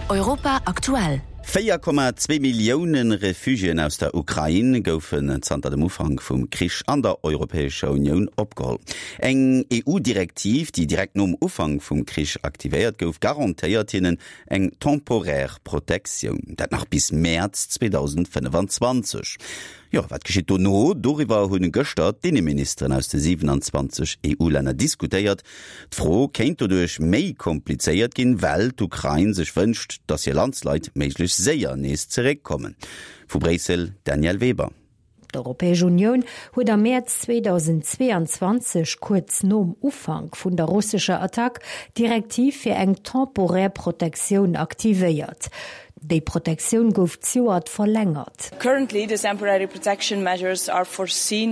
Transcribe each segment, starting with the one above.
Europa aktuell. 4,2 Millioune Refugiéen aus der Ukrain goufen zanter dem Ufank vum Krich an der Europäescher Unioun opgeholl. Eng EU-Direktiv, déi direkt nom Ufank vum Krich aktivéiert gouf, garantéiert hinnen eng temporär Protektioun. Dat nach bis Mäerz 2025. Jo, wat geschitt dono? Doriwwer hunn gëschter d'Inneministeren aus de 27 EU-Länner diskutéiert. D'Fro kéint doduerch méi komplizéiert ginn, well d'Ukrain sech wënscht, datt hir Landsleit méiglechst séier nees zeréckkommen. Vu Bréissel, Danièle Weber. D'Europäesch Unioun huet am Mäerz 2022, kuerz nom Ufank vun der russescher Attack, d'Direktiv fir eng temporär Protektioun aktivéiert. Déi Protektioun gouf zejoert verlängert.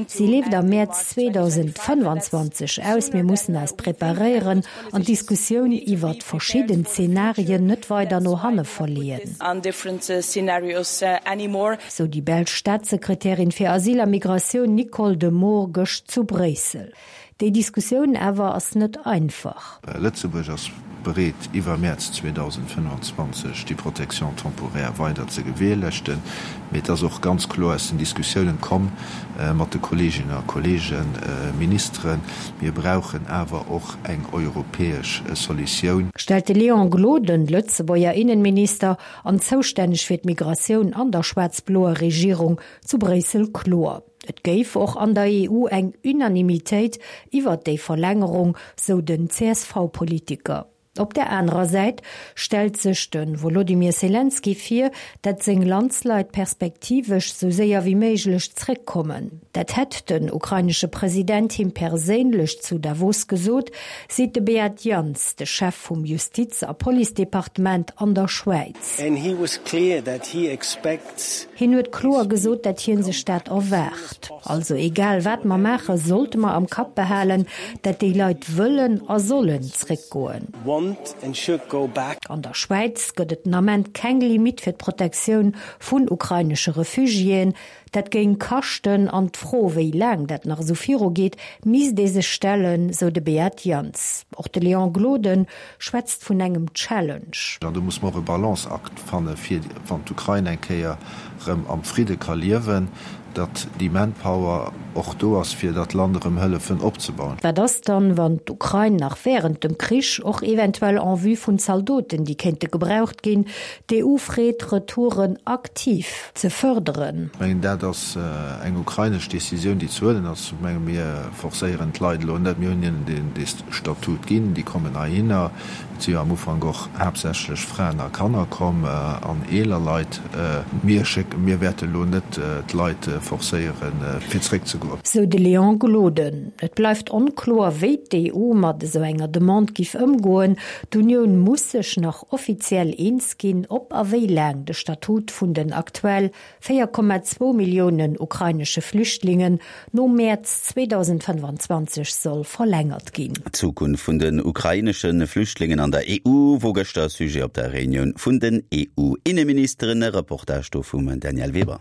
Si leeft am Mäerz 2025 aus. Mir mussen eis preparéieren an d'Diskussioun iwwert verschidden Zenarien net weider no hanne verleeën, sou déi belsch Staatssekretärin fir Asyl a Migratioun Nicole de Moor gëscht zu Bréissel. Déi Diskussioun awer ass net einfach. Lëtzebuerg ass bereet, iwwer Mäerz 2025 déi Protection temporaire weider ze gewährleeschten. Mee et ass och ganz kloer aus den Diskussiounen komm mat de Kolleeginnen a Kolleegen Ministeren, Mir brauchen awer och eng europäesch Solutioun. Stellt de Léon Gloden, Lëtzebuerger Innenminister an zoustänneg fir d'Migratioun an der schwaarz-bloer Regierung zu Bréissel kloer. Et géif och an der EU eng Unanimitéit iwwert déi Verlängerung, sou den CSV-Politiker. Op der anerer Säit stellt sech de Wolodymyr Selenskyj vir, dat seng Landsleit perspektivesch sou séier wéi méiglech zréckkommen. Dat hätt den ukrainesche President him perséinlech zu Davos gesot, seet de Beat Jans, de Chef vum Justiz a Policedepartement an der Schwäiz. Hien huet kloer gesot, dat hien sech dat erwaart. Also egal wat mer maachen, sollte mer am Kapp behalen, dat déi Leit wëllen a sollen zréckgoen. An der Schwäiz gëtt et den Ament keng Limitt fir d'Protektioun vun ukrainesche Refugiéen. Dat géing kaschten an d'Fro, wéi laang dat nach esou virugeet, misst ee sech stellen, sou de Beat Jans. Och de Léon Gloden schwätzt vun engem Challenge. An do muss mer och e Balanceakt fanne fir, wann d'Ukrain eng Kéier erëm am Fridde ka liewen, datt déi Manpower och do ass, fir dat Land erëm hëllefen opzebauen. Wat ass dann, wann d'Ukrain nach wärend dem Krich, och eventuell en vue vun Zaldoten, déi kéinte gebraucht ginn, d'EU freet, Retouren aktiv ze fërderen? Ech mengen, dat ass eng ukrainesch Decisioun, déi ze huelen ass. Ech menge mir forcéieren d'Leit elo net. Mir hunn hinnen dee Statut ginn, déi kommen heihinner. Et si jo am Ufank och haaptsächlech Fraen a Kanner komm an eeler Leit. Mir schécken, mir wäerte elo net d'Leit forcéieren, fir zréckzegoen. Sou de Léon Gloden. Et bleift onkloer, wéi d'EU mat esou enger Demande giff ëmgoen. D'Unioun muss sech nach offiziell eens ginn, ob a wéi laang de Statut vun den aktuell 4,2 Milliounen ukrainesche Flüchtlingen nom Mäerz 2025 soll verlängert ginn. D'Zukunft vun den ukrainesche Flüchtlingen an der EU wor gëschter Sujet op der Reunioun vun den EU-Inneministeren. E Reportage do vum Danièle Weber.